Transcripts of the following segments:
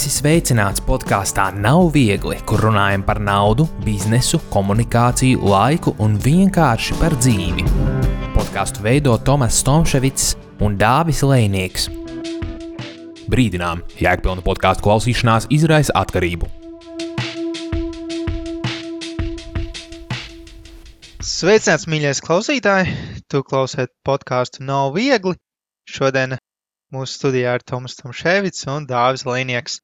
Esi sveicināts podkāstā Nav viegli, kur runājam par naudu, biznesu, komunikāciju, laiku un vienkārši par dzīvi. Podkāstu veido Tomas Stomševics un Dāvis Lejnieks. Brīdinām, jēgpilna podkāstu klausīšanās izraisa atkarību. Sveicināts, mīļais klausītāji! Tu klausies podkāstu Nav viegli. Šodien mūsu studijā ir Tomas Stomševics un Dāvis Lejnieks.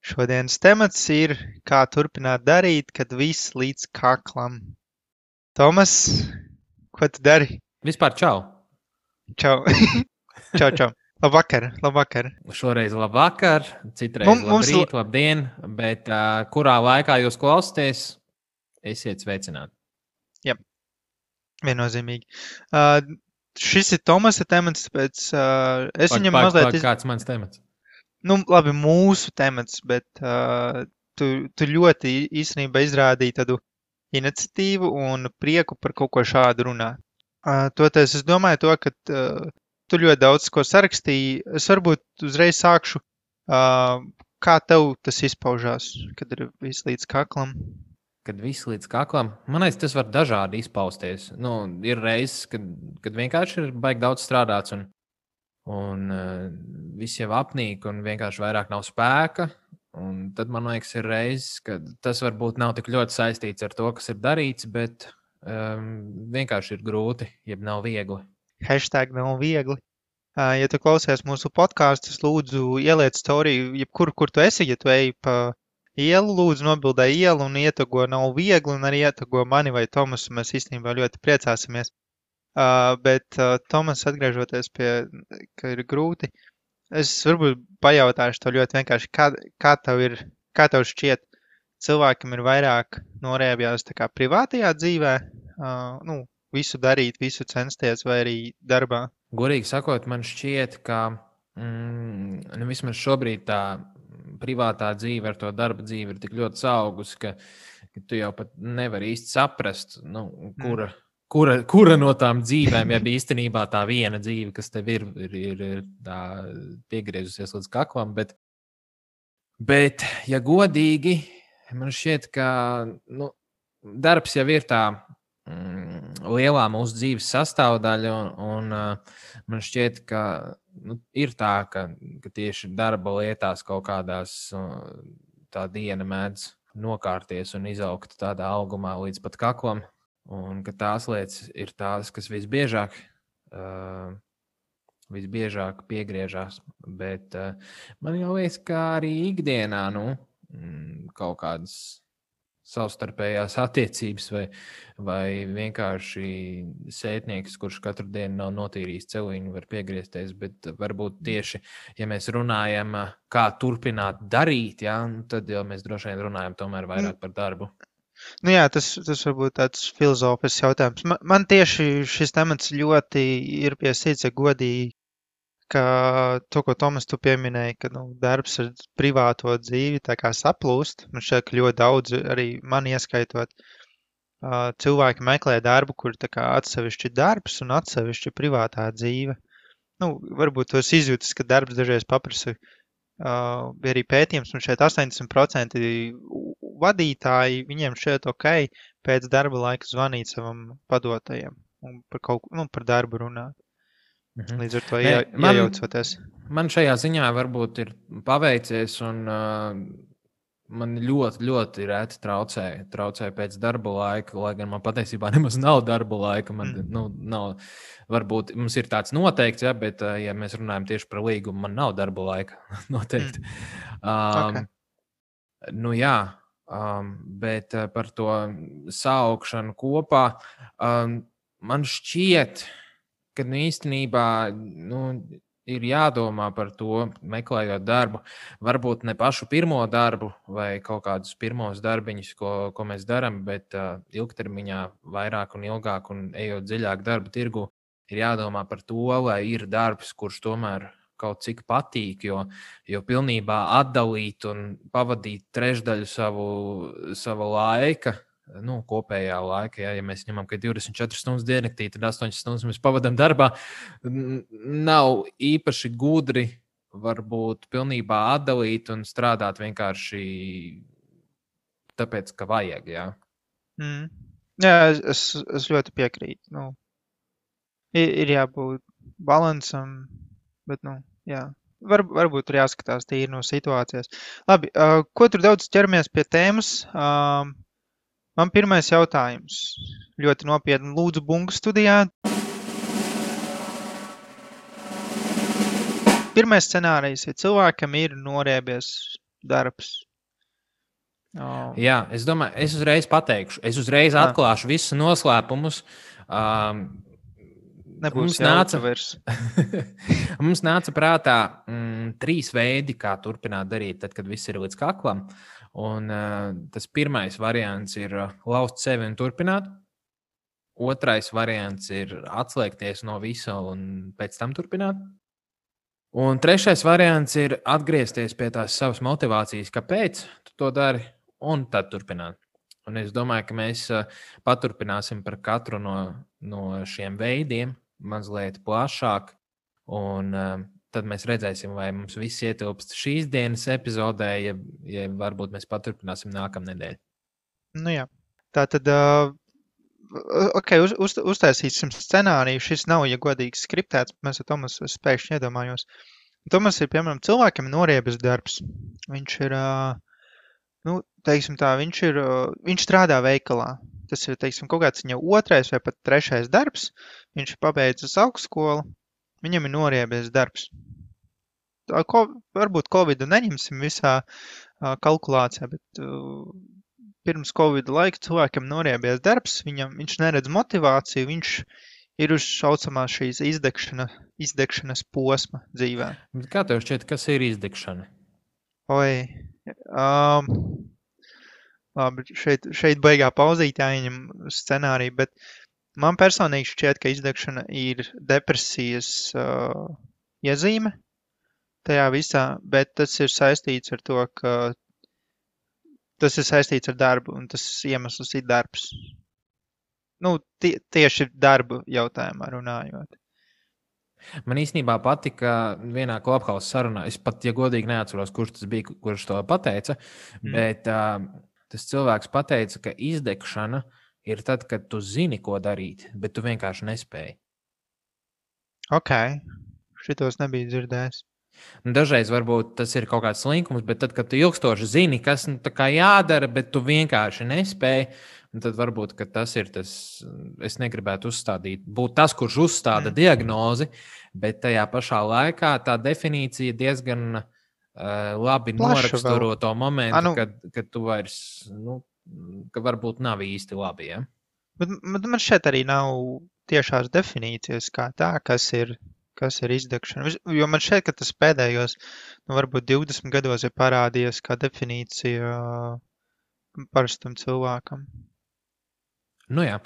Šodienas temats ir, kā turpināt darīt, kad viss līdz kaklam. Tomas, ko tu dari? Vispār čau! Čau! Čau! Labvakar! Šoreiz labvakar, citreiz labrīt, labdien, bet kurā laikā jūs klausāties, esiet sveicināti. Jā, viennozīmīgi. Šis ir Tomasa temats, tāpēc es viņam mazliet... Kāds mans temats? Nu, labi, mūsu temats, bet tu ļoti īstenībā izrādīji tādu iniciatīvu un prieku par kaut ko šādu runāt. Toties es domāju to, ka tu ļoti daudz ko sarakstīji. Es varbūt uzreiz sākšu, kā tev tas izpaužās, kad ir viss līdz kaklam. Kad viss līdz kaklam, man liekas, tas var dažādi izpausties. Ir reizes, kad vienkārši ir baigi daudz strādāts un viss jau apnīk un vienkārši vairāk nav spēka. Un tad, man liekas, ir reizes, kad tas varbūt nav tik ļoti saistīts ar to, kas ir darīts, bet vienkārši ir grūti, jeb nav viegli. Hashtag nav viegli. Ja tu klausies mūsu podkāstus, lūdzu ieliec storiju, jebkur, kur tu esi, ja tu ej pa ielu, lūdzu nobildē ielu un ietago Nav viegli un arī ietago mani vai Tomasu. Mēs īstenībā ļoti priecāsimies. Bet Tomas, atgriežoties pie, ka ir grūti, es varbūt pajautāšu to ļoti vienkārši, kā tev šķiet, cilvēkam ir vairāk norēbjās tā kā privātajā dzīvē, visu darīt, visu censties vai arī darbā? Godīgi sakot, man šķiet, ka vismaz šobrīd tā privātā dzīve ar to darba dzīvi ir tik ļoti saugus, ka tu jau pat nevari īsti saprast, kura no tām dzīvēm, ja īstenībā tā viena dzīve, kas tev ir tā piegriezusies līdz kaklam, bet ja godīgi, man šķiet, ka darbs jau ir tā lielā mūsu dzīves sastāvdaļa, un man šķiet, ka ir tā, ka tieši darba lietās kaut kādās tā diena mēdz nokārties un izaugt tādā augumā līdz pat kaklam, un ka tās lietas ir tās, kas visbiežāk piegriežās, bet man jau liekas, ka arī ikdienā kaut kādas savstarpējās attiecības vai vienkārši sētnieks, kurš katru dienu nav notīrījis celiņu, var piegriezties, bet varbūt tieši, ja mēs runājam, kā turpināt darīt, tad jau mēs droši vien runājam tomēr vairāk par darbu. Tas varbūt tāds filozofisks jautājums. Man tieši šis temats ļoti ir pie sirds, ja godīgi, ka to, ko Tomas tu pieminēji, ka darbs ar privāto dzīvi tā kā saplūst. Man šķiet, ka ļoti daudz, arī man ieskaitot, cilvēki meklē darbu, kur tā kā atsevišķi darbs un atsevišķi privātā dzīve. Varbūt tos izjūtas, ka darbs dažreiz paprasa, bija arī pētījums, un šeit 80% vadītāji, viņiem šķiet ok, pēc darba laika zvanīt savam padotajam un par darbu runāt. Līdz ar to iejaucoties. Man šajā ziņā varbūt ir paveicies, un man ļoti, ļoti reti traucē pēc darba laika, lai gan man patiesībā nemaz nav darba laika. Man nav, varbūt mums ir tāds noteikts, bet ja mēs runājam tieši par līgumu, man nav darba laika noteikti. Okay. Bet par to saukšanu kopā, man šķiet, ka īstenībā ir jādomā par to, meklējot darbu, varbūt ne pašu pirmo darbu vai kaut kādus pirmos darbiņus, ko mēs darām, bet ilgtermiņā vairāk un ilgāk un ejot dziļāk darba tirgu, ir jādomā par to, lai ir darbs, kurš tomēr kaut cik patīk, jo pilnībā atdalīt un pavadīt trešdaļu savu laika, kopējā laika, ja mēs ņemam, ka 24 stundas diennaktī, tad 8 stundas mēs pavadām darbā, nav īpaši gudri varbūt pilnībā atdalīt un strādāt vienkārši tāpēc, ka vajag, jā. Jā, es ļoti piekrītu. Nu, ir jābūt balansam, bet, nu, jā. Varbūt tur jāskatās tīri no situācijas. Labi, ko tur daudz ķeramies pie tēmas? Man pirmais jautājums. Ļoti nopietni lūdzu bungu studijā. Pirmais scenārijs, ja cilvēkam ir noriebies darbs. Jā, es domāju, es uzreiz pateikšu. Es uzreiz atklāšu visus noslēpumus. Nebūs jauka vairs. Mums nāca prātā 3 veidi, kā turpināt darīt, tad, kad viss ir līdz kaklam. Un tas pirmais variants ir lauzt sevi un turpināt. Otrais variants ir atslēgties no visa un pēc tam turpināt. Un trešais variants ir atgriezties pie tās savas motivācijas, kāpēc tu to dari, un tad turpināt. Un es domāju, ka mēs paturpināsim par katru no šiem veidiem mazliet plašāk, un tad mēs redzēsim, vai mums viss ietilpst šīs dienas epizodē, ja varbūt mēs paturpināsim nākamnedēļ. Nu jā, tā tad, uztaisīsim scenāriju, šis nav, ja godīgi skriptēts, mēs ar Tomasu spēkšņi iedomājos. Tomas ir, piemēram, cilvēkam noriebies darbs. Viņš ir, teiksim tā, viņš strādā veikalā. Tas ir, teiksim, kaut kāds viņa 2. vai pat 3. darbs. Viņš ir pabeidzis augstskolu. Viņam ir noriebies darbs. Varbūt Covidu neņemsim visā kalkulācijā, bet pirms Covida laika cilvēkam noriebies darbs. Viņš neredz motivāciju, viņš ir uz šaucamā šīs izdegšanas posma dzīvē. Kā tev šķiet, kas ir izdegšana? Labi, šeit baigā pauzīt jāieņem scenāriju, bet man personīgi šķiet, ka izdegšana ir depresijas iezīme tajā visā, bet tas ir saistīts ar to, ka tas ir saistīts ar darbu, un tas iemesls ir darbs. Tieši darbu jautājumā runājot. Man īstenībā patika vienā Clubhouse sarunā, es pat, ja godīgi neatceros, kurš tas bija, kurš to pateica, bet tas cilvēks pateica, ka izdegšana ir tad, kad tu zini, ko darīt, bet tu vienkārši nespēji. Ok, šitos nebija dzirdējis. Dažreiz varbūt tas ir kaut kāds slinkums, bet tad, kad tu ilgstoši zini, kas tā kā jādara, bet tu vienkārši nespēji, tad varbūt, ka tas ir tas, es negribētu būt tas, kurš uzstāda diagnozi, bet tajā pašā laikā tā definīcija diezgan labi noraksturo to momentu, kad tu vairs, ka varbūt nav īsti labi, ja? Bet man šeit arī nav tiešās definīcijas kā tā, kas ir izdegšana. Jo man šeit, ka tas pēdējos, varbūt 20 gados ir parādījies kā definīcija parastam cilvēkam. Jā,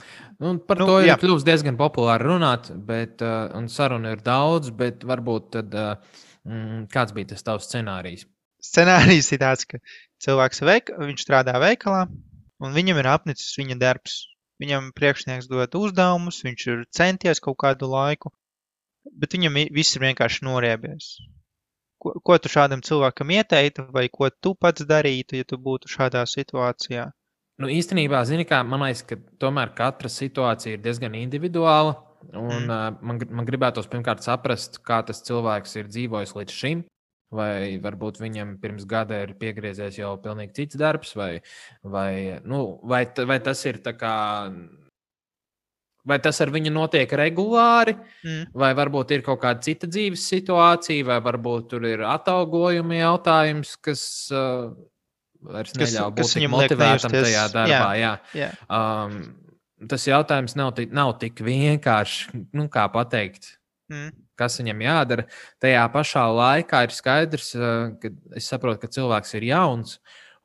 par to ir kļūst diezgan populāri runāt, un saruna ir daudz, bet varbūt tad kāds bija tas tavs scenārijs? Scenārijs ir tāds, ka cilvēks viņš strādā veikalā, un viņam ir apnicis viņa darbs. Viņam priekšnieks dod uzdevumus, viņš ir centies kaut kādu laiku, bet viņam viss ir vienkārši noriebies. Ko tu šādam cilvēkam ieteiktu, vai ko tu pats darītu, ja tu būtu šādā situācijā? Īstenībā, man liekas, ka tomēr katra situācija ir diezgan individuāla. Un, man gribētos pirmkārt saprast, kā tas cilvēks ir dzīvojis līdz šim. Vai varbūt viņam pirms gada ir piegriezies jau pilnīgi cits darbs, vai tas ir tā kā. Vai tas ar viņu notiek regulāri, vai varbūt ir kaut kāda cita dzīves situācija, vai varbūt tur ir atalgojuma jautājums, kas vairs neļauj būt tik motivētam tajā darbā. Jā. Tas jautājums nav tik vienkārši, kā pateikt, kas viņam jādara. Tajā pašā laikā ir skaidrs, ka es saprotu, ka cilvēks ir jauns,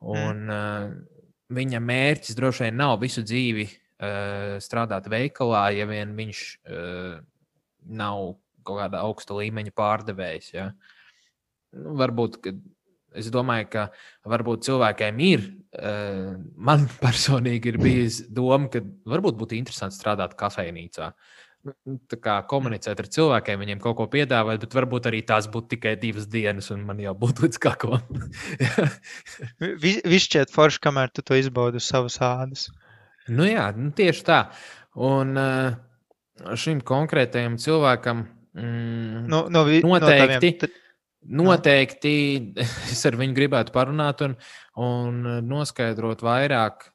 un viņa mērķis droši vien nav visu dzīvi strādāt veikalā, ja vien viņš nav kaut kāda augsta līmeņa pārdevējs. Ja? Varbūt, es domāju, ka varbūt cilvēkiem ir, man personīgi ir bijis doma, ka varbūt būtu interesanti strādāt kafejnīcā. tā kā komunicēt ar cilvēkiem, viņiem kaut ko piedāvāt, bet varbūt arī tās būtu tikai 2 dienas, un man jau būtu līdz kaklam. Viss šķiet forši, kamēr tu to izbaudi uz savas ādas. Nu jā, tieši tā. Un šim konkrētajam cilvēkam noteikti es ar viņu gribētu parunāt un noskaidrot vairāk,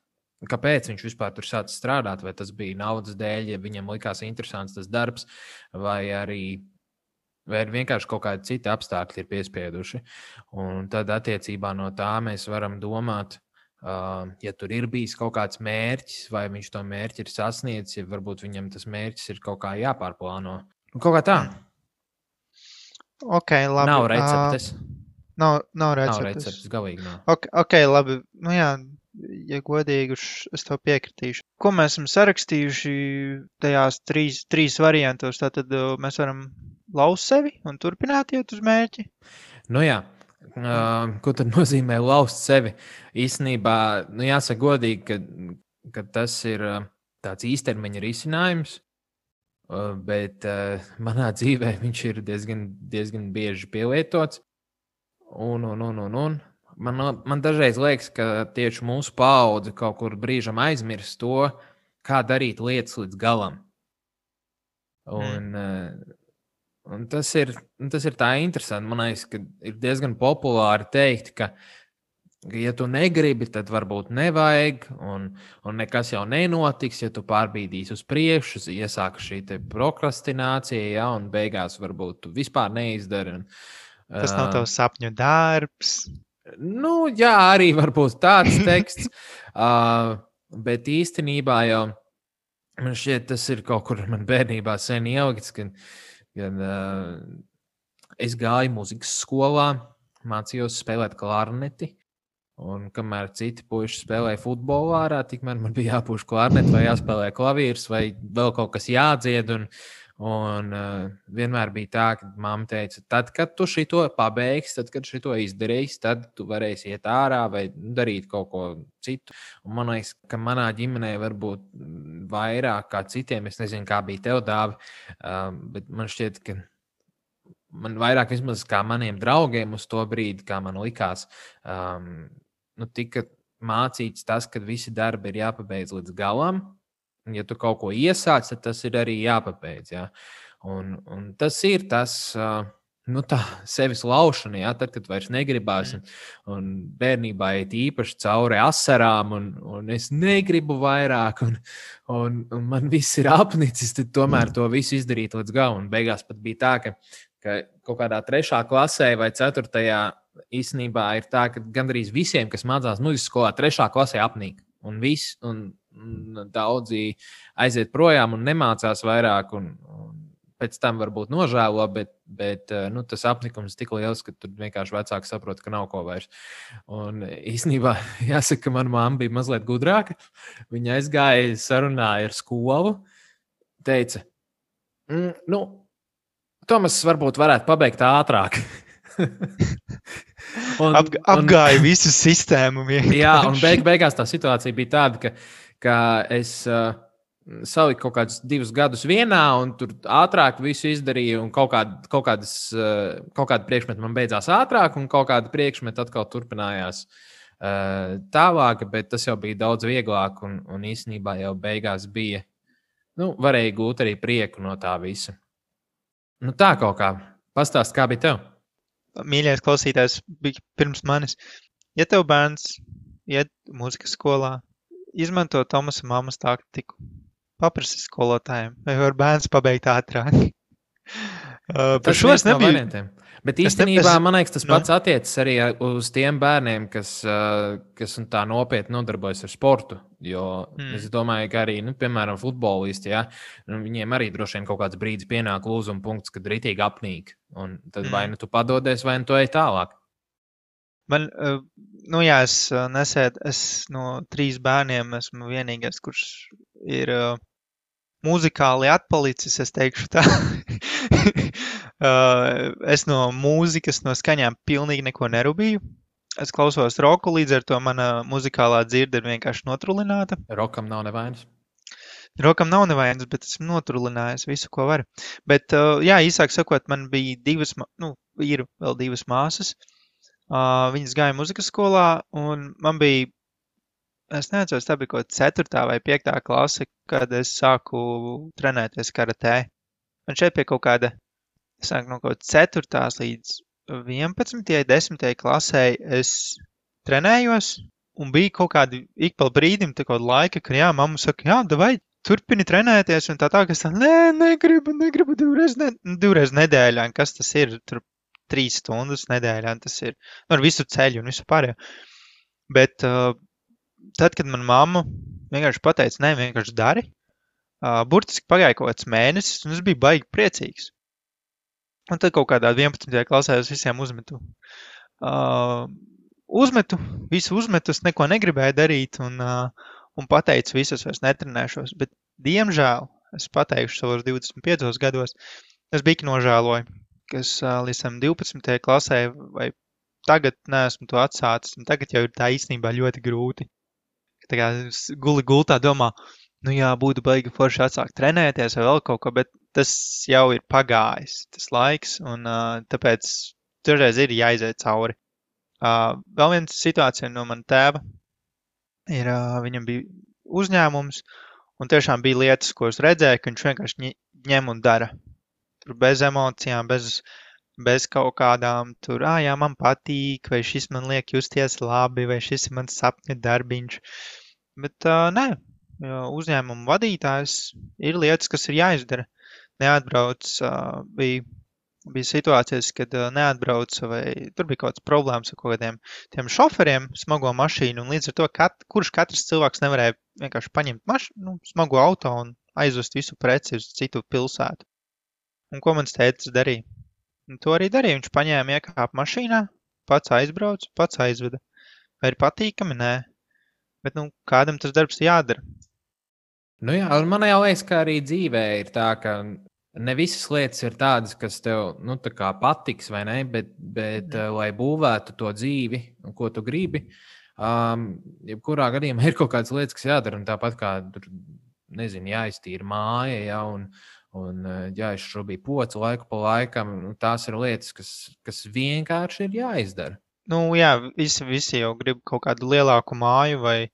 kāpēc viņš vispār tur sācis strādāt, vai tas bija naudas dēļ, ja viņam likās interesants tas darbs, vai vienkārši kaut kādi citi apstākļi ir piespieduši. Un tad attiecībā no tā mēs varam domāt, ja tur ir bijis kaut kāds mērķis, vai viņš to mērķi ir sasniedzis, ja varbūt viņam tas mērķis ir kaut kā jāpārplāno. Kaut kā tā. Okay, labi. Nav receptes. Nav receptes. Galīgi nav. Okay, labi. Nu jā, ja godīgi, es to piekritīšu. Ko mēs esam sarakstījuši tajās trīs variantos? Tātad mēs varam laust sevi un turpināt iet uz mērķi? Nu jā. Ko tad nozīmē laust sevi? Īstenībā, jāsaka godīgi, ka tas ir tāds īstermiņa risinājums, bet manā dzīvē viņš ir diezgan bieži pielietots. Man dažreiz liekas, ka tieši mūsu paudze kaut kur brīžam aizmirst to, kā darīt lietas līdz galam. Un tas ir tā interesanti. Man liekas, ka ir diezgan populāri teikt, ka ja tu negribi, tad varbūt nevajag, un nekas jau nenotiks, ja tu pārbīdīsi uz priekšu, iesāka šī te prokrastinācija, ja, un beigās varbūt tu vispār neizdari. Tas nav tavs sapņu darbs. Nu, jā, arī varbūt tāds teksts, bet īstenībā jau man šķiet, tas ir kaut kur man bērnībā sen ielikts, kad es gāju mūzikas skolā, mācījos spēlēt klarneti, un kamēr citi puiši spēlēja futbolu ārā, tikmēr man bija jāpūš klarneti vai jāspēlē klavīrs vai vēl kaut kas jādzied, un vienmēr bija tā, ka mamma teica, tad, kad tu šito pabeigsi, tad, kad šito izdarīsi, tad tu varēsi iet ārā vai darīt kaut ko citu. Un man liekas, ka manā ģimenē varbūt vairāk kā citiem, es nezinu, kā bija tev, Dāvi, bet man šķiet, ka man vairāk vismaz kā maniem draugiem uz to brīdi, kā man likās, tika mācīts tas, ka visi darbi ir jāpabeidz līdz galam. Ja tu kaut ko iesāc, tad tas ir arī jāpabeidz. Ja? Un tas ir tas, tā sevis laušana, ja? Tad, kad vairs negribās. Un bērnībā iet īpaši cauri asarām, un es negribu vairāk, un man viss ir apnicis, tad tomēr to visu izdarīt līdz galam. Un beigās pat bija tā, ka kaut kādā 3. klasē vai 4. īstenībā ir tā, ka gandrīz visiem, kas mācās mūzikas skolā, 3. klasē apnīk. Un daudzi aiziet projām un nemācās vairāk, un pēc tam varbūt nožēlo, bet tas apnikums tik liels, ka tur vienkārši vecāki saprot, ka nav ko vairs. Un īstenībā jāsaka, ka mana mamma bija mazliet gudrāka. Viņa aizgāja, sarunāja ar skolu, teica, Tomas varbūt varētu pabeigt ātrāk. Apgāja visu sistēmu. Jā, un beigās tā situācija bija tāda, ka es saliku kaut kādus 2 gadus vienā, un tur ātrāk visu izdarīju, un kaut kāda priekšmeta man beidzās ātrāk, un kaut kāda priekšmeta atkal turpinājās tālāk, bet tas jau bija daudz vieglāk, un īstenībā jau beigās bija, varēja gūt arī prieku no tā visa. Tā kaut kā. Pastāst, kā bija tev? Mīļais klausītājs bija pirms manis. Ja tev bērns iet mūzikas skolā, izmanto Tomasa mammas taktiku. Paprasti skolotājiem, vai var bērns pabeigt ātrāk. Par šo es nebiju. Bet īstenībā, man liekas, tas pats attiecas arī uz tiem bērniem, kas tā nopietni nodarbojas ar sportu. Jo es domāju, ka arī, piemēram, futbolisti, ja, viņiem arī droši vien kaut kāds brīdis pienāk lūzuma punkts, kad ritīgi apnīk. Un tad vai tu padodies, vai tu ej tālāk. Man, es no 3 bērniem esmu vienīgais, kurš ir muzikāli atpalicis, es teikšu tā. Es no mūzikas, no skaņām pilnīgi neko nerubīju. Es klausos roku, līdz ar to mana muzikālā dzirde ir vienkārši notrulināta. Rokam nav nevainas? Rokam nav nevainas, bet esmu noturlinājis visu, ko var. Bet, jā, īsāk sakot, man bija ir vēl divas māsas. Viņas gāja muzikas skolā, un man bija, es neatceros, tā bija kaut 4. vai 5. klase, kad es sāku trenēties karatē. Man šeit pie kaut kāda, es sāku no kaut 4. līdz 11. 10. klasē es trenējos, un bija kaut kādi ik pa brīdim, tā kaut laika, ka jā, mamma saka, jā, davai, turpini trenēties, un tā, ka es tā, negribu divreiz nedēļā, un kas tas ir, tur 3 stundas nedēļā, tas ir, ar visu ceļu un visu pārējo. Bet tad, kad man mamma vienkārši pateica, nē, vienkārši dari, burtiski pagāja kaut kāds mēnesis, un es biju baigi priecīgs. Un tad kaut kādā 11. klasē es visiem uzmetu. Visu uzmetu, es neko negribēju darīt, un pateicu, visus vairs netrenēšos. Bet, diemžēl, es pateikšu savos 25 gados, es biju nožēloju, ka es līdz 12. klasē vai tagad neesmu to atsācis, un tagad jau ir tā īstenībā ļoti grūti. Tā kā guli gultā domā, nu jā, būtu baigi forši atsākt trenēties vai vēl kaut ko, bet tas jau ir pagājis, tas laiks, un tāpēc toreiz ir jāiziet cauri. Vēl viena situācija no mana tēva ir, viņam bija uzņēmums, un tiešām bija lietas, ko es redzēju, ka viņš vienkārši ņem un dara. Tur bez emocijām, bez kaut kādām tur, jā, man patīk, vai šis man liek justies labi, vai šis ir mans sapņu darbiņš. Bet nē, uzņēmumu vadītājs ir lietas, kas ir jāizdara. Neatbrauc, bija situācijas, kad neatbrauca, vai tur bija kaut kāds problēmas ar kaut kādiem tiem šoferiem smago mašīnu, un līdz ar to, kurš katrs cilvēks nevarēja vienkārši paņemt smago auto un aizvest visu preci uz citu pilsētu. Un ko mans tētis darīja? Un to arī darīja. Viņš paņēma iekāpa mašīnā, pats aizbrauc, pats aizveda. Vai ir patīkami? Nē. Bet, kādam tas darbs jādara. Nu jā, un man jau liekas, ka arī dzīvē ir tā, ka ne visas lietas ir tādas, kas tev, tā kā patiks, vai ne, bet lai būvētu to dzīvi, ko tu gribi, jebkurā gadījumā ir kaut kādas lietas, kas jādara, un tāpat kā, nezinu, jāiztīra māja, ja, un jāizšrubī poci laiku pa laikam, tās ir lietas, kas vienkārši ir jāizdara. Jā, visi jau grib kaut kādu lielāku māju, vai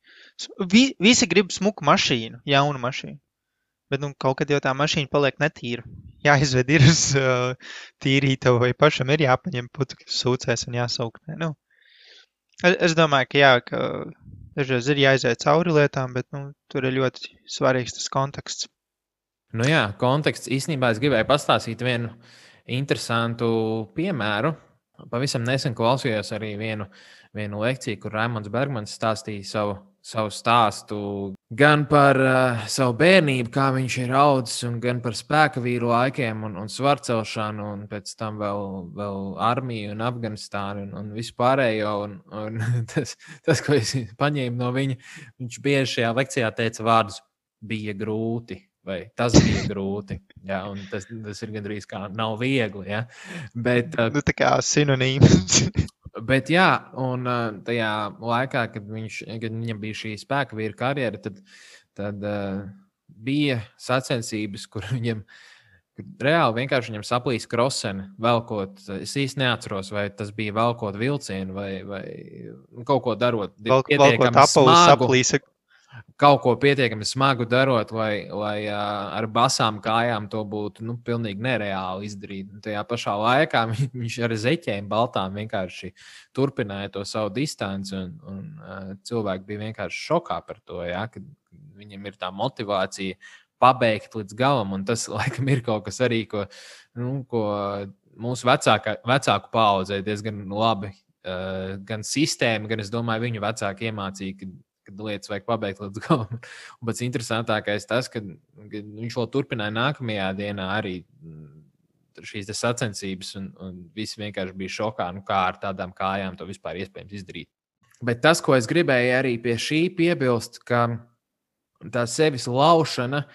visi grib smuku mašīnu, jaunu mašīnu. Bet kaut kad jau tā mašīna paliek netīra. Jāizved ir uz tīrīta, vai pašam ir jāpaņem putekļu sūcēs un jāsaukt. Es domāju, ka jā, ka dažreiz ir jāiziet cauri lietām, bet tur ir ļoti svarīgs tas konteksts. Jā, konteksts. Īstenībā es gribēju pastāstīt vienu interesantu piemēru. Pavisam nesen klausījos arī vienu lekciju, kur Raimonds Bergmans stāstīja savu stāstu gan par savu bērnību, kā viņš ir audzis, un gan par spēka vīru laikiem un svarcelšanu, un pēc tam vēl armiju un Afganistānu un visu pārējo. Un tas, ko es paņēmu no viņa, viņš bieži šajā lekcijā teica vārdus bija grūti. Vai tas bija grūti, ja, un tas ir gandrīz kā nav viegli, ja, bet... tā kā sinonīms. Bet jā, un tajā laikā, kad viņam bija šī spēka vīra karjera, tad bija sacensības, kur reāli vienkārši viņam saplīs kroseni, velkot, es īsti neatceros, vai tas bija velkot vilcienu, vai kaut ko darot. Velkot apavu saplīsa. Kaut ko pietiekami smagu darot, lai ar basām kājām to būtu pilnīgi nereāli izdarīt. Un tajā pašā laikā viņš ar zeķēm baltām vienkārši turpināja to savu distanci, un cilvēki bija vienkārši šokā par to, ja, ka viņam ir tā motivācija pabeigt līdz galam, un tas, laikam, ir kaut kas arī, ko mūsu vecāku paaudzē diezgan labi, gan sistēma, gan, es domāju, viņu vecāki iemācīja, kad lietas vajag pabeigt līdz galam. Un pats interesantākais tas, ka viņš vēl turpināja nākamajā dienā arī šīs sacensības, un visi vienkārši bija šokā, kā ar tādām kājām to vispār iespējams izdarīt. Bet tas, ko es gribēju arī pie šī piebilst, ka tā sevis laušana,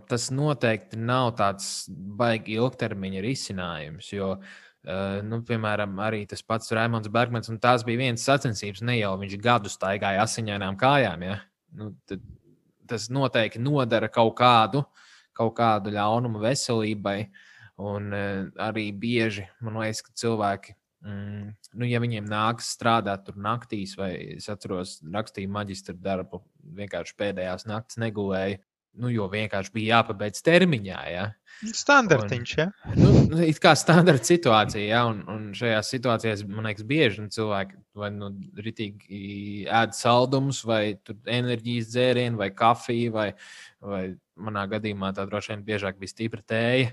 tas noteikti nav tāds baigi ilgtermiņa risinājums, jo piemēram, arī tas pats Raimonds Bergmans, un tās bija vienas sacensības, ne jau viņš gadu staigāja asiņainām kājām, ja? tas noteikti nodara kaut kādu ļaunumu veselībai. Un arī bieži, man liekas, ka cilvēki, ja viņiem nākas strādāt tur naktīs, vai es atceros, rakstīju maģistra darbu, vienkārši pēdējās naktas negulēju, jo vienkārši bija jāpabeidz termiņā. Ja? Standartiņš, ja? It kā standarta situācija, ja? Un šajās situācijās, man liekas, bieži cilvēki vai ritīgi ēd saldumus, vai enerģijas dzērienu, vai kafiju, vai manā gadījumā tā droši vien biežāk bija stipra tēja,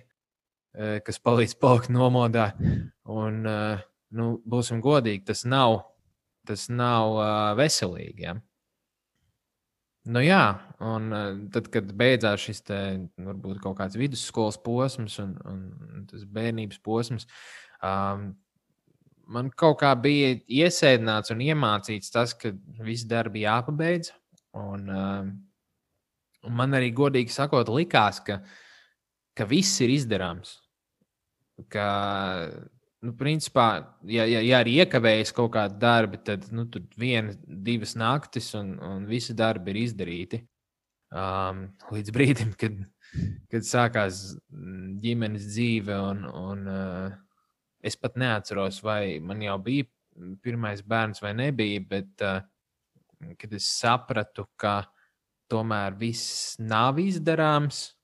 kas palīdz palikt nomodā. Un, būsim godīgi, tas nav veselīgi. Ja? Jā, un tad, kad beidzās šis varbūt kaut kāds vidusskolas posms un tas bērnības posms, man kaut kā bija iesēdināts un iemācīts tas, ka visi darbi jāpabeidz. Un man arī godīgi sakot likās, ka viss ir izdarāms. Ka, principā, ja arī iekavējas kaut kādi darbi, tad tur 1-2 naktis un visi darbi ir izdarīti. Līdz brīdim, kad sākās ģimenes dzīve un es pat neatceros, vai man jau bija pirmais bērns vai nebija, bet kad es sapratu, ka tomēr viss nav izdarāms,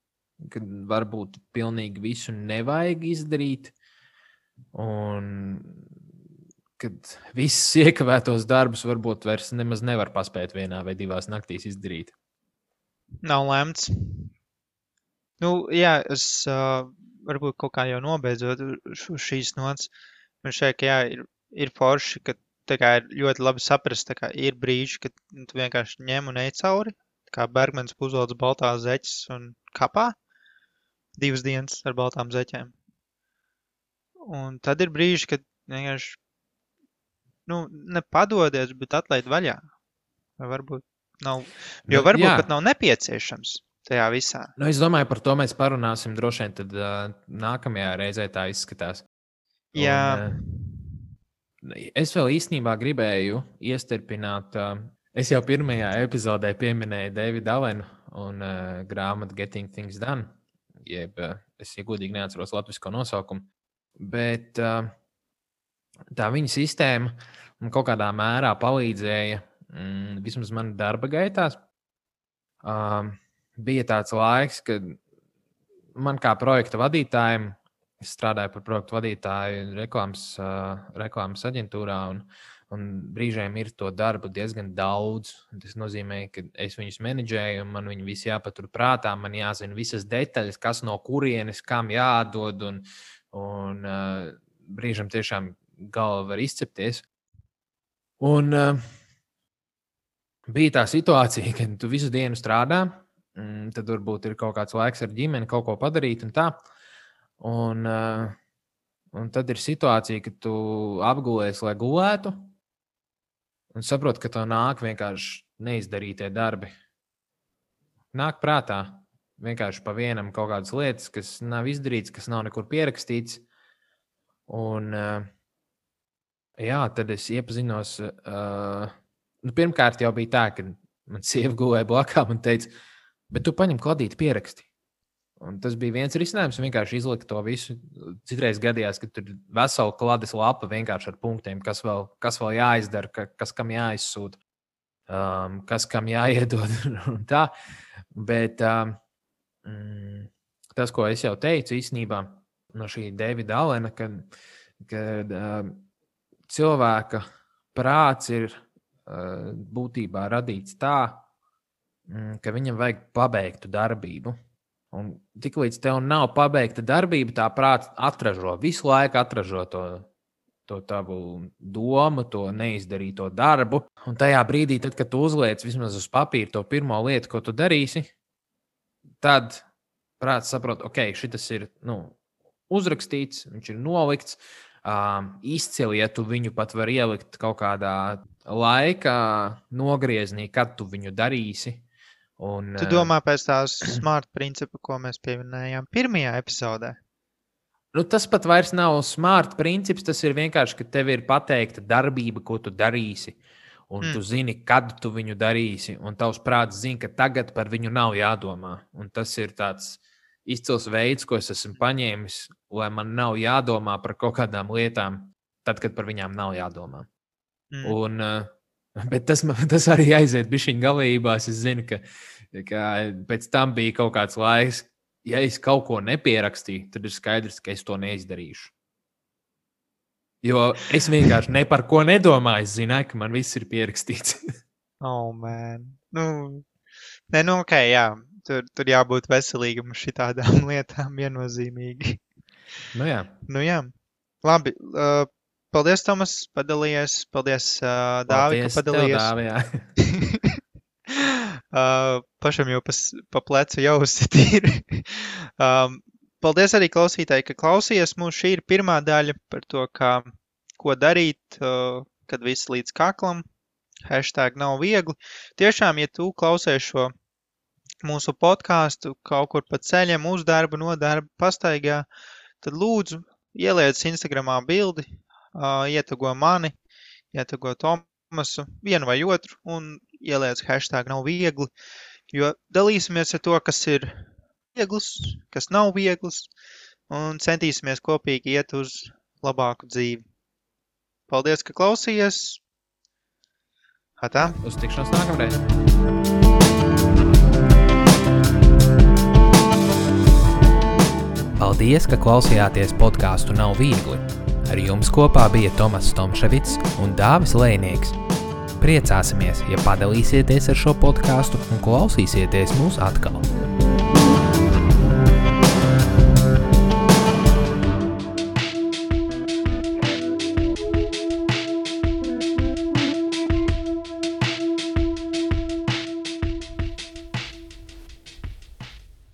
kad varbūt pilnīgi visu nevajag izdarīt, un kad visus iekavētos darbus varbūt vairs nemaz nevar paspēt 1 vai 2 naktīs izdarīt. Nav lemts. Jā, es varbūt kaut kā jau nobeidzot šīs nots. Man šeit, ka ir forši, ka tā kā ir ļoti labi saprast, tā kā ir brīži, kad tu vienkārši ņem un ej cauri, kā Bergmans Puzolds baltās zeķes un kapā 2 dienas ar baltām zeķēm. Un tad ir brīži, kad vienkārši, nepadodies, bet atlaid vaļā. Vai varbūt nav, jo varbūt pat nav nepieciešams tajā visā. Es domāju, par to mēs parunāsim droši vien, tad nākamajā reizē tā izskatās. Jā. Es vēl īstenībā gribēju iestarpināt, es jau pirmajā epizodē pieminēju Davidu Allenu un grāmatu Getting Things Done, jeb es godīgi neatceros latvisko nosaukumu, bet tā viņa sistēma kaut kādā mērā palīdzēja vismaz man darba gaitās. Bija tāds laiks, kad man kā projekta vadītājiem, es strādāju par projektu vadītāju reklāmas aģentūrā, un brīžiem ir to darbu diezgan daudz. Tas nozīmē, ka es viņus menedžēju, un man viņi visi jāpatur prātā, man jāzina visas detaļas, kas no kurienes, kam jādod, un brīžiem tiešām galva var izcepties. Un bija tā situācija, ka tu visu dienu strādā, tad varbūt ir kaut kāds laiks ar ģimeni kaut ko padarīt un tā. Un tad ir situācija, ka tu apgulies, lai gulētu, un saproti, ka tev nāk vienkārši neizdarītie darbi. Nāk prātā vienkārši pa vienam kaut kādas lietas, kas nav izdarīts, kas nav nekur pierakstīts. Un tad es iepazinos. Pirmkārt jau bija tā, ka man sieva gulēja blakām un teica, bet tu paņem kladīti pieraksti. Un tas bija viens risinājums, vienkārši izlikt to visu. Citreiz gadījās, ka tur ir vesela klades lapa vienkārši ar punktiem, kas vēl jāizdara, kas kam jāizsūta, kas kam jāiedod un tā. Bet tas, ko es jau teicu īstenībā no šī Davida Allena, kad cilvēka prāts ir būtībā radīts tā, ka viņam vajag pabeigtu darbību. Un tiklīdz tev nav pabeigta darbība, tā prāts visu laiku atražo to tavu domu, to neizdarīto darbu. Un tajā brīdī, tad, kad tu uzliec vismaz uz papīra to pirmo lietu, ko tu darīsi, tad prāts saprot, ok, šitas ir uzrakstīts, viņš ir nolikts. Izcili, ja tu viņu pat var ielikt kaut kādā laika nogrieznī, kad tu viņu darīsi. Tu domā pēc tās smart principa, ko mēs pieminējām pirmajā epizodē? Tas pat vairs nav smart princips, tas ir vienkārši, ka tev ir pateikta darbība, ko tu darīsi. Un tu zini, kad tu viņu darīsi, un tavs prāts zina, ka tagad par viņu nav jādomā. Un tas ir tāds izcils veids, ko es esmu paņēmis, lai man nav jādomā par kaut kādām lietām, tad, kad par viņām nav jādomā. Un, bet tas arī aiziet bišķiņ galībās. Es zinu, ka pēc tam bija kaut kāds laiks, ja es kaut ko nepierakstīju, tad ir skaidrs, ka es to neizdarīšu. Jo es vienkārši ne par ko nedomāju. Es zināju, ka man viss ir pierakstīts. Oh, man. Ok, jā. Tur jābūt veselīgam šitādām lietām viennozīmīgi. Nu jā. Labi. Paldies, Tomas, padalījies. Paldies, Dāvi, ka padalījies. Dāvi, Pašam jau pa plecu jau uzsitīri. Paldies arī klausītāji, ka klausījies mūs. Šī ir pirmā daļa par to, ko darīt, kad viss līdz kaklam. # nav viegli. Tiešām, ja tu klausies šo mūsu podcastu kaut kur pa ceļiem uz darbu, no darba, pastaigā, tad lūdzu ieliec Instagramā bildi, ietago mani, ietago Tomasu, vienu vai otru, un ieliec # nav viegli, jo dalīsimies ar to, kas ir viegls, kas nav viegls, un centīsimies kopīgi iet uz labāku dzīvi. Paldies, ka klausījies. Atā. Uz tikšanos nākamreiz. Paldies, ka klausījāties podcastu Nav viegli. Ar jums kopā bija Tomas Tomševits un Dāvis Lēnieks. Priecāsimies, ja padalīsieties ar šo podcastu un klausīsieties mūs atkal.